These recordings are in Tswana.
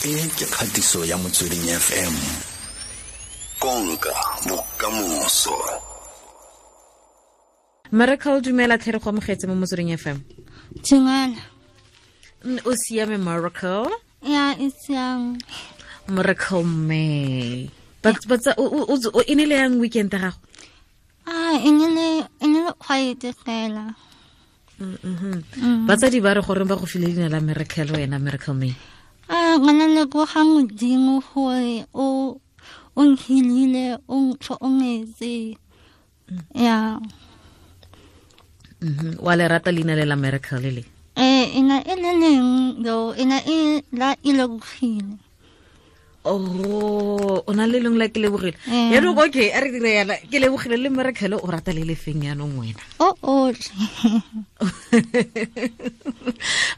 E ke kgatiso ya Motsweding FM. Konka bokamoso. Miracle, dumela tlhe, re go amogetse mo Motsweding FM. Dumela. O siame, Miracle? Ya, e siame. Miracle May. But o e ne le yang weekend ya gago? Ah, e ne le quiet fela. Batsadi ba re goreng ba go file leina la Miracle wena, Miracle May? Ah, ngwana leboga Modimo gore o nhilile, o ntlhokometse. Ya. Wa le rata leina le la Miracle le? Eh, ina e le leng do, ina e la e lebogile. Oh, o na le leng la ke lebogile. Yaanong okay, a re dire yana, ke lebogile le Miracle, o rata le lefeng yaanong wena? O otlhe.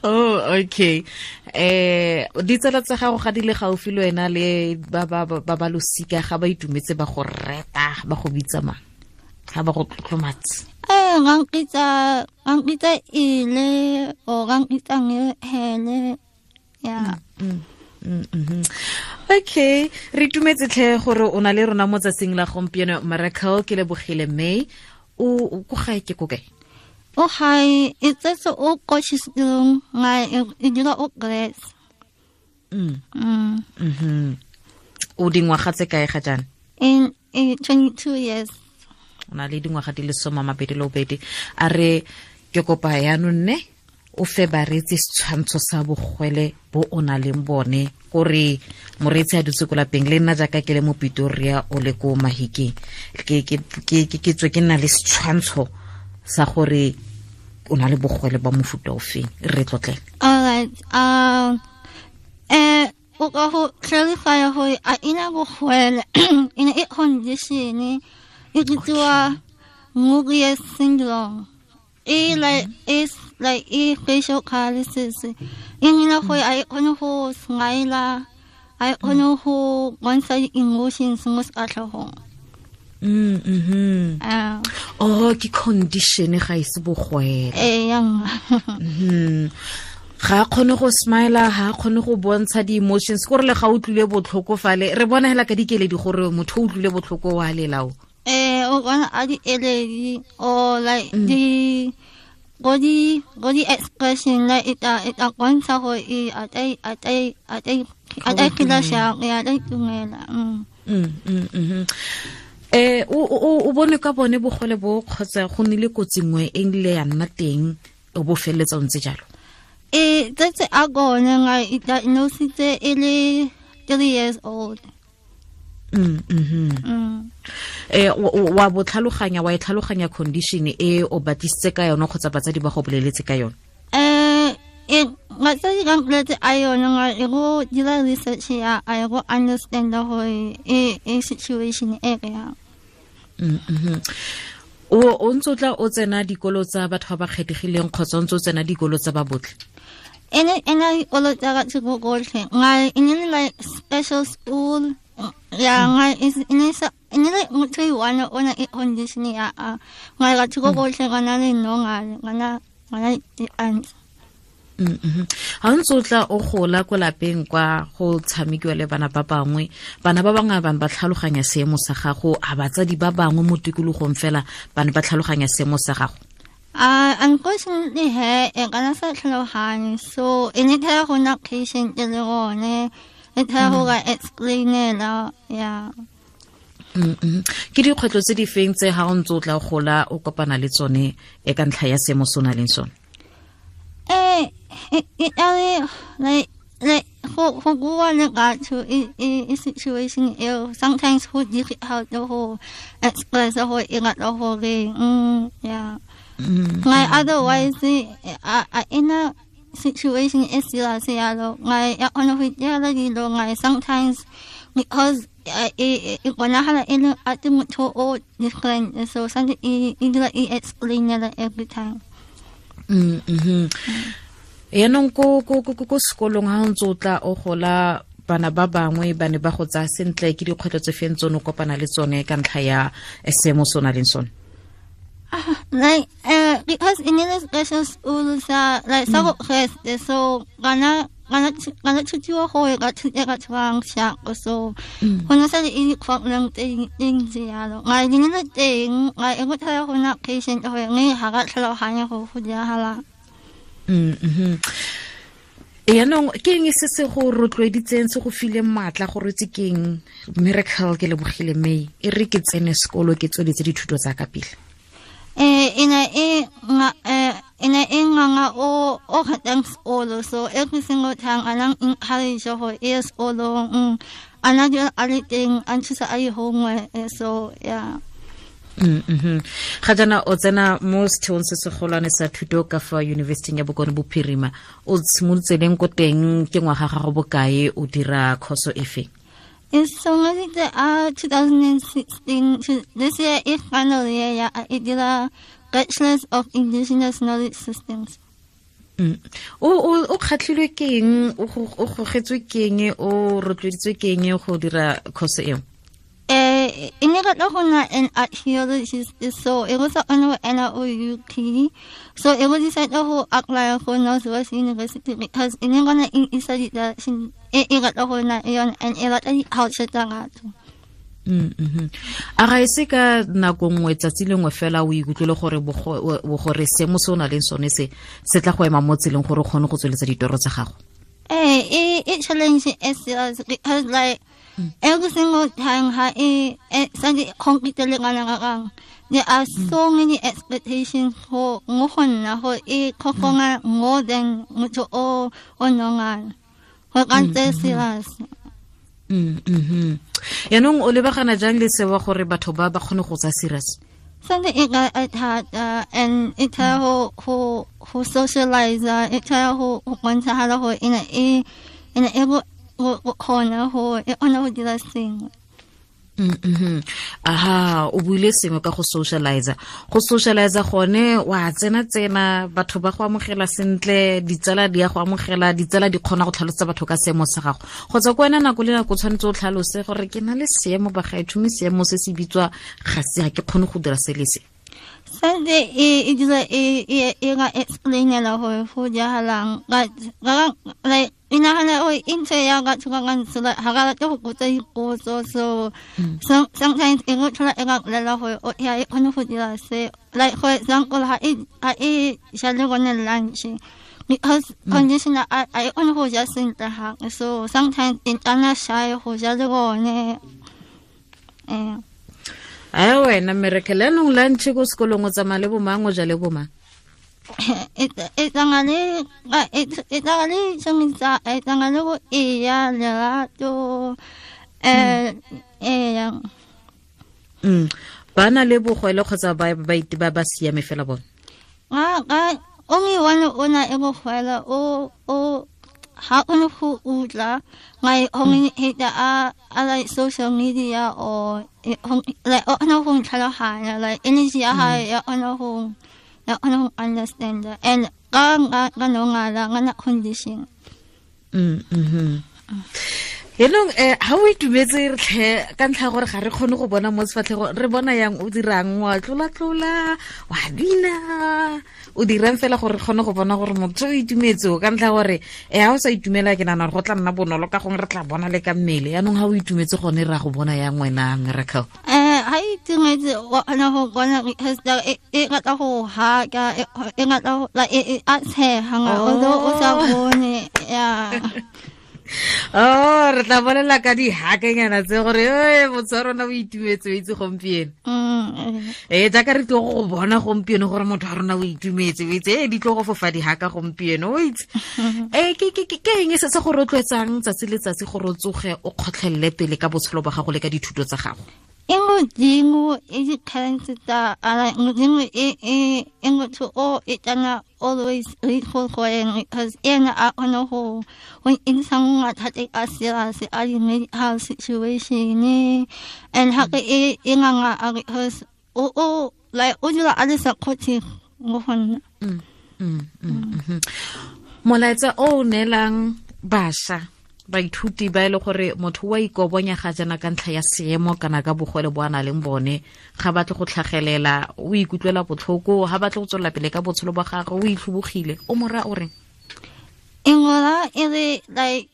Oh, okay. Ditsala tsa gago ga di le gaufi le wena le ba losika, ga ba itumetse ba go reta, ba go bitsa mang? Ga ba go tlotlomatse. Eh, ngangitsa ile o ngangitsa ngehele. Ya. Okay, re itumetse tlhe gore o na le rona mo tsatsing la gompieno, Miracle ke lebogile May. O ko gae ke ko kae? O gae e tsetse o Potchefstroom, nga e dula o Grace. O dingwaga tse kae ga jaana? In 22 years. O na le dingwaga di le 22. A re ke kopa yaanong nne o fe bareetsi setshwantsho sa bogwele bo o na leng bone, kore moreetsi a dutse ko lapeng le nna jaaka ke le mo Pitoria, o le ko Mahikeng, ke tswe ke nna le setshwantsho sa gore o na le bogwele ba mofuta o feng. Re tlotlele. Alright. O ka go clarify gore a ina bogwele, ina e condition e bitsiwa Mobius syndrome. E like is like e facial paralysis. E nina gore a e kgone go smile, a e kgone go bontsha di-emotions mo sefatlhegong. Ah. Oh, ke condition, ga e se bogwele. Eh, yang. Ga a kgone go smile, ga a kgone go bontsha di-emotions, kore le ga o utlwile botlhoko fale re bona hela ka dikeledi gore motho o utlwile botlhoko wa lelao. Eh, o bona a di eledi or like di body expression, like e ta bontsha gore e a ta phela shang ya ta itumela. O bone ka bone bogole bo kgotsa go nnile kotsi nngwe e nile ya nna teng o bo feleletsa o ntse jalo? E tsetse a gone nga e diagnositse e le 3 years old. Wa bo tlhaloganya, wa e tlhaloganya condition e, o batlisitse ka yone kgotsa batsadi ba go boleletse ka yone? Eh, e batsadi ba mpoletse a yone, nga e go dira research ya a e go understand gore e situation e re yang. O ntse o tla o tsena dikolo tsa batho ba ba kgethegileng kgotsa o ntse o tsena dikolo tsa ba botlhe? Ene ena dikolo tsa batho bo botlhe, nga e ne le like special school ya nga e ne sa e ne le motho e one o na e condition ya a nga batho bo botlhe ga na le no nga di-aunt. Ga o ntse o tla o gola ko lapeng kwa go tshamekiwa le bana ba bangwe, bana ba bangwe bane ba tlhaloganya seemo sa gago? A batsadi ba bangwe mo tikologong fela ba ne ba tlhaloganya seemo sa gago? Unfortunately he e kana sa tlhaloganye, so e ne thaya go nna patient le gone e thaya go ka explainela ya. Ke dikgwetlho tse di feng tse ga o ntse o tla gola o kopana le tsone e ka ntlha ya seemo se o na leng sone? Eh, e ale like go bua le batho e situation eo sometimes go difficult go express go e batla gore ya like otherwise a ina situation e serious yalo, ngai ya kgona go itirela dilo, ngai sometimes because e bonagala e le ate motho o different, so santse e dula e explainela every time. Yaanong ko sekolong ga o ntse o tla o gola, bana ba bangwe ba ne ba go tsaya sentle? Ke dikgwetlho tse feng tsone o kopana le tsone ka ntlha ya seemo se o na leng sone? Like because in the special school sa like sa go so bana Ngana thutiwa go ka ka tshwang sha so go na sa le problem teng ntse yalo nga di ne teng nga e go tla go na patient go nge ha ga tlhaloganya go go diragala. Yaanong ke eng se se go rotloeditseng, se go fileng maatla gore tse keng Miracle ke lebogile May e re ke tsene sekolo ke tsweletse dithuto tsa ka pele? Ina e nga o o khatang sekolo, so every single time anang encourage go e sekolo ana di a le teng a nthusa a ye homework, so yeah. Ga jaana o tsena mo setheong se segolwane sa thuto ka fa University ya Bokone Bophirima, o simolotse leng ko teng, ke ngwaga gago bokae, o dira khoso efe? E simolotse a 2016, this year e final year ya e dira Bachelors of Indigenous Knowledge Systems. O kgatlhilwe ke eng, o gogetswe ke eng, o rotloeditswe ke eng go dira khoso eo? E ne rata go nna an archaeologist, so e go sa kgone go ena o UP, so e go decide go apply go Northwest University because e ne gona e isa di-direction e e rata go nna yone and e rata di-culture tsa batho. A ga e se ka nako nngwe tsatsi lengwe fela o ikutlwele gore gore seemo se o na leng sone se se tla go ema mo tseleng gore o kgone go tsweletsa ditoro tsa gago? E challenge e serious because like every single time ha e sa di compete le ngwana ga there are so many expectations go ngo go nna go e khokonga more than motho o o nonga go ka ntse serious. Yaanong o lebagana jang le sewa gore batho ba ba kgone go tsa serious? Something e ka thata and e tla go go go socialize, e tla go go bontshagala go ena e ena e go kgona go e kgona go dira sengwe. Aha, o buile sengwe ka go socialize. Go socialize gone wa tsena batho ba go amogela sentle, ditsala di ya go amogela, ditsala di kgona go tlhalosetsa batho ka seemo sa gago. Kgotsa ko wena nako le nako tshwanetse o tlhalose gore ke na le seemo bagaetsho, mme seemo se se bitswa ga se ga ke kgone go dira se le se. Santse e dira e ga explainela gore go diragalang like e nagana gore e ntse ya batho ba bantsi ga ba rate go botsa dipotso, so sometimes e go tlhola e ba bolela gore ya e kgone go dira se, like for example ha e ja le bone lunch because conditioner a e kgone go ja sentle gape, so sometimes e tana shy go ja le bone. Ai wena Miracle, anong lunch ko sekolong o tsamaya le bomang, o ja le bomang? E tsamaya le tshwanetsa, e tsamaya le go eya lerato eya. Ba na le bogwele kgotsa ba ba siame fela bone? Only one o na e bogwele o ha o ne go utlwa like communicate a like social media or like o kgona go ntlhaloganya, like energy ya gae ya kgona go ya kgona go understand and ka no ngala nga na condition. Yaanong ha o itumetse re tlhe ka ntlha gore ga re kgone go bona mo sefatlhego, re bona yang o dirang, wa tlola-tlola, wa bina, o dirang fela gore re kgone go bona gore motho o itumetse ka ntlha gore ha o sa itumela ke nagana gore go tla nna bonolo ka gongwe re tla bona le ka mmele. Yaanong ha o itumetse gone ra go bona yang wena Miracle? Ha itumetse wa kgona go bona because e rata go haka, e rata like e a tshega although o sa bone yeah. Oh, re tla bolela ka dihakanyana tse gore motho wa rona o itumetse o itse gompieno. Jaaka re tlo go bona gompieno gore motho wa rona o itumetse o itse, di tlo go fofa dihaka gompieno o itse. Ke eng se se go rotloetsang tsatsi le tsatsi gore o tsoge o kgotlhelele pele ka botshelo ba gago le ka dithuto tsa gago? E modimo e di-talents tsa modimo e motho o e tana always grateful for eng because ena a kgone go intsha mathata a serious a di-medical situation and gape e nganga a because o like o dula a le supportive mo go nna. Molaetsa o neelang bašwa baithuti ba e le gore motho wa ikobonya ga jana ka ntlha ya seemo kana ka bogole bo a na leng bone, ga batle go tlhagelela, o ikutlwela botlhoko, ga batle go tswelela pele ka botshelo ba gagwe, o itlhobogile, o mora o reng? E ngola e le like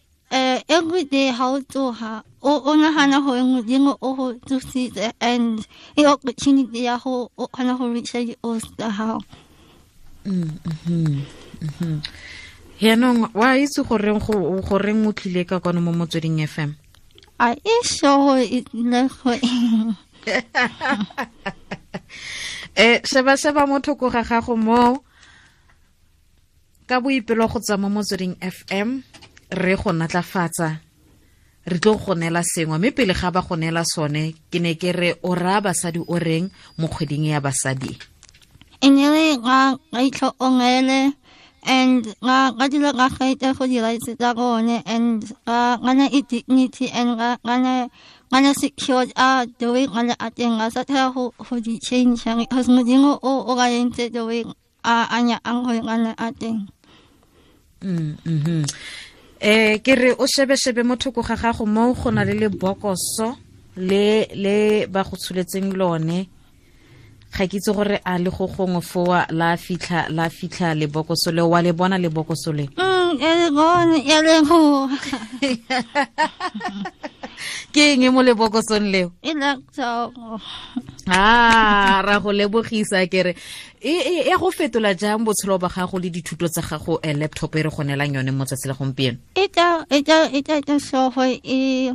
every day ha o tsoha o nahana hore Modimo o ho tsositse and e opportunity ya ho o kgona ho reacha di-goals tsa hao. Yaanong wa itse goreng goreng o tlile ka kwano mo Motsweding FM? A e sure gore e tlile go eng. Sheba mo thoko ga gago mo ka boipelo go tswa mo Motsweding FM re go natlafatsa, re tlo go neela sengwe, mme pele ga ba go neela sone ke ne ke re o raya basadi o reng mo kgweding ya basadi? E ne le ga itlhokomele and ga dilo ga gaita go di-rights tsa bone and ga na e dignity and ga na secured a the way ga le a teng, ga sa tla go di change because Modimo o ga entse the way a nyakang gore ga le a teng. Ke re o shebe mo thoko ga gago mo go na le lebokoso le ba go tsholetseng lone. Ga ke itse gore a le go gongwe foa la fitlha lebokoso le, wa le bona lebokoso le? E le bone, e le go. Ke eng mo lebokosong leo? E laptop. Ra go lebogisa ke re e go fetola jang botshelo ba gago le dithuto tsa gago laptop e re go neelang yone mo tsatsi la gompieno? E tla so go e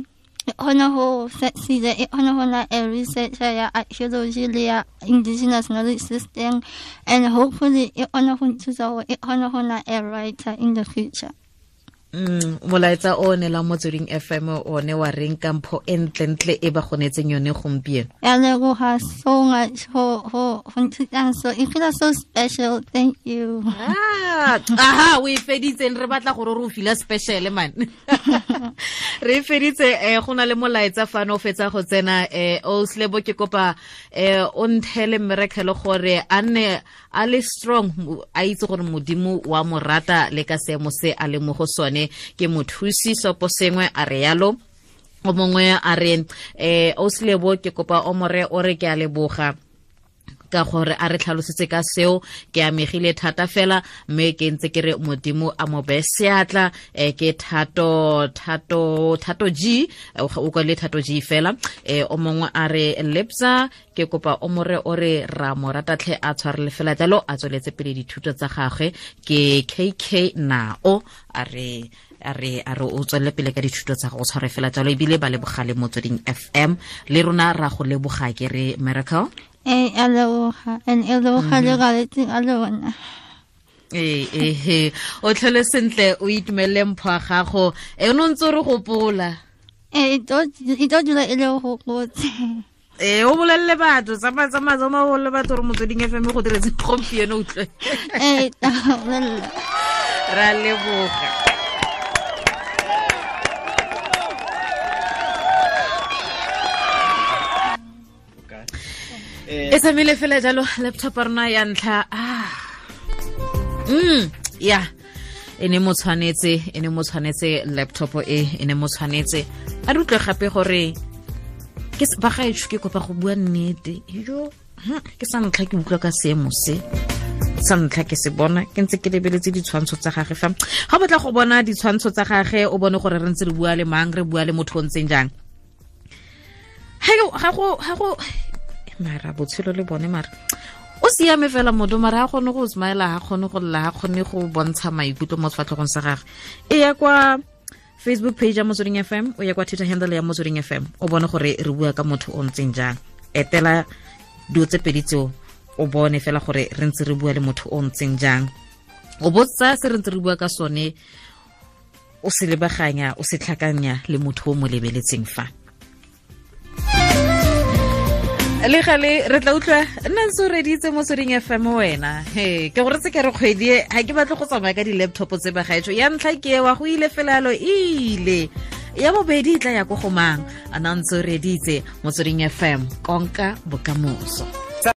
kgona go succeed, e kgona go na a researcher ya archaeology le ya indigenous knowledge system, and hopefully e kgona go nthusa gore e kgona go na a writer in the future. Molaetsa o ne la Motsweding FM o ne wa reng ka mpho e ntlentle e ba go neetseng yone gompieno? Ya leboga so much go nthutang so, e feel so special, thank you. Aha, o e feditseng, re batla gore re o feel special man. Re e feditse. Go na le molaetsa fano o fetsa go tsena. O Slebo ke kopa o nthele mmerekelo gore a nne a le strong, a itse gore Modimo wa mo rata le ka seemo se a le mo go sone. Ke mothusi sopo sengwe a re yalo. O mongwe a re o Slebo ke kopa o more o re ke a leboga ka gore a re tlhalosetse ka seo, ke amegile thata fela mme ke ntse ke re Modimo a mo beye seatla. Ke Thato G, o kwale Thato G fela. O mongwe a re Lepsa ke kopa o more o re ra mo rata tlhe a tshwarele fela jalo, a tsweletse pele dithuto tsa gagwe. Ke KK Nao a re o tswelele pele ka dithuto tsa go tshware fela jalo, ebile ba lebogale Motsweding FM le rona ra go leboga ke re Miracle. A leboga, and e leboga le galetseng a lona. O tlhole sentle, o itumelele mpho ya gago. O ne o ntse o re gopola. E tlo dula e le gopotse. O bolelele batho, tsamaya o bolelele batho gore Motsweding FM go diretse gompieno, utlwe. Ra leboga. E tsamaile fela jalo laptop ya rona ya ntlha. Ya e ne mo tshwanetse laptop e ne mo tshwanetse. A re utlwe gape gore ke ba gaetsho, ke kopa go bua nnete yo, ke sa ntlha ke utlwa ka seemo se, sa ntlha ke se bona ke ntse ke lebeletse ditshwantsho tsa gage fa. Ga o batla go bona ditshwantsho tsa gage o bone gore re ntse re bua le mang, re bua le motho o ntseng jang. Ga go mara botshelo le bone, mara o siame fela motho, mara ga kgone go smile, ga kgone go lla, ga kgone go bontsha maikutlo mo sefatlhegong sa gagwe. E ya kwa Facebook page ya Motsweding FM, o ya kwa Twitter handle ya Motsweding FM, o bone gore re bua ka motho o ntseng jang. Etela dilo tse pedi tseo o bone fela gore re ntse re bua le motho o ntseng jang. O botsa se re ntse re bua ka sone, o se lebaganya, o se tlhakanya le motho o mo lebeletseng fa. Le gale re tla utlwa nna ntse o reditse Motsweding FM wena. He ke gore tse ke re kgwedi e ga ke batle go tsamaya ka di-laptop tse ba gaetsho. Ya ntlha ke wa go ile fela yalo ile, ya bobedi e tla ya ko go mang. A nna ntse o reditse Motsweding FM, konka bokamoso.